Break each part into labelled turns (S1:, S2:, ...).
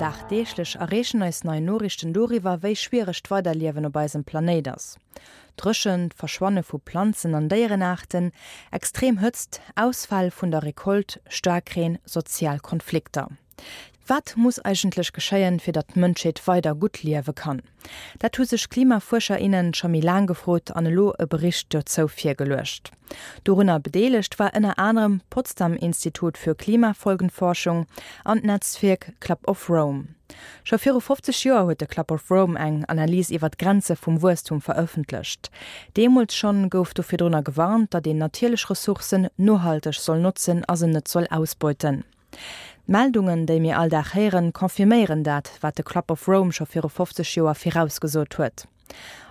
S1: Dagdeeglech erreechen eis nei Noriichten doriwwer, wéi schwiereg d'Weiderliewen op eisem Planéit ass. Dréchent, Verschwanne vu Planzen an Déierenaarten, extrem Hëtzt, Ausfäll vun der Recolte, Staarkreen, sozial Konflikter. Wat muss eigentlech geschéien, fir datt d'Mënschheet weider gutt liewe kann? Dat hu sech Klimafuerscher, innen scho méi laang gefrot an elo e Bericht dozou virgeluecht. Dorunner bedeelegt war ënner anerem d'Potsdam Institut für Klimafolgenforschung an d'Netzwierk Club of Rome. Scho viru 50 Joer huet de Club of Rome eng Analys iwwer d'Grenze vum Wuesstum verëffentlecht. Deemools schonn gouf do virdrunner gewarnt, datt een natierlech Ressourcen nohalteg soll notzen a se net soll ausbeuten. D'Meldungen, déi mir all Dag héieren, confirméieren dat, wat de Club of Rome scho viru 50 Joer virausgesot huet.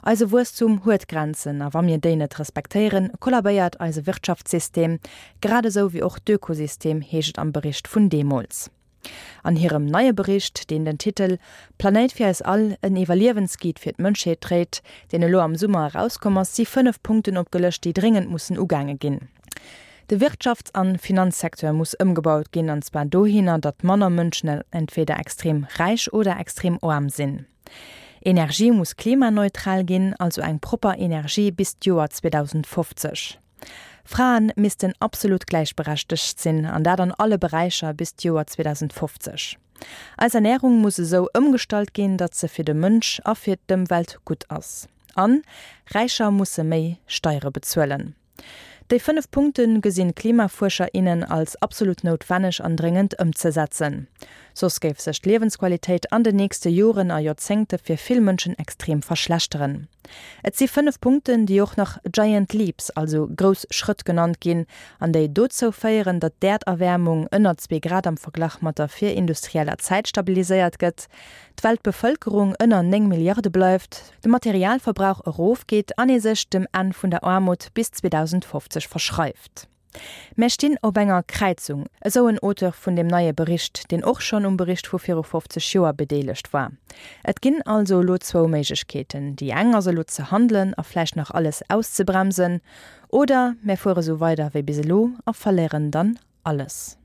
S1: Eise Wuesstum huet Grenzen, a wa mir déi net respektéieren, kollabéiert eise Wirtschaftssystem, grad esou wéi och d'Ökosystem, heescht et am Bericht vun deemools. An hirem neie Bericht, deen den Titel Planéit fir eis all, en Iwwerliewensguide fir d'Mënschheet dréit, deen elo am Summer erauskomm ass, si 5 Punkten opgelëscht, déi dréngend mussen ugaange ginn. De Wirtschafts an Finanzsecteur muss ëmgebaut ginn, an zwar dohinner, datt manner Mënschen entweder extrem räich oder extrem aarm sinn. Energie muss klimaneutral ginn, also eng propper Energie bis d'Joer 2050. Fraen missten absolut gläichberechtegt sinn, an dat an alle Beräicher bis d'Joer 2050. Eis Ernärung muss esou ëmgestallt ginn, datt se fir de Mënsch a fir d'Ëmwelt gutt ass. An Räicher musse méi Steiere bezuelen. Déi 5 Punkte gesinn d'Klimafuerscher, innen als absolut noutwenneg an dréngend ëmzesetzen. Soss géif sech d'Liewensqualitéit an den nächste Joren a Joerzéngte fir vill Mënschen extrem verschlechteren. Et si 5 Punkten, déi och nach Giant Leaps, also grouss Schrëtt genannt ginn, an déi dozou féieren, datt d'Äerderwäermung ënner zwee Grad am Verglach mat der virindustrieller Zäit stabiliséiert gëtt, d'Weltbevëlkerung ënner 9 Milliarde bleift, de Materialverbrauch erofgeet an ee sech dem Enn vun der Aarmut bis 2050 verschreift. Mär stinn op enger Kräizung, esou en Auteur vun deem neie Bericht, deen och schonn um Bericht vu viru 50 Joer bedeelegt war. Et ginn also elo zwou Méiglechkeeten, Déi eng ass elo ze handelen a vläicht nach alles auszebremsen, oder mär fuere sou weider wéi bis elo a verléieren dann alles.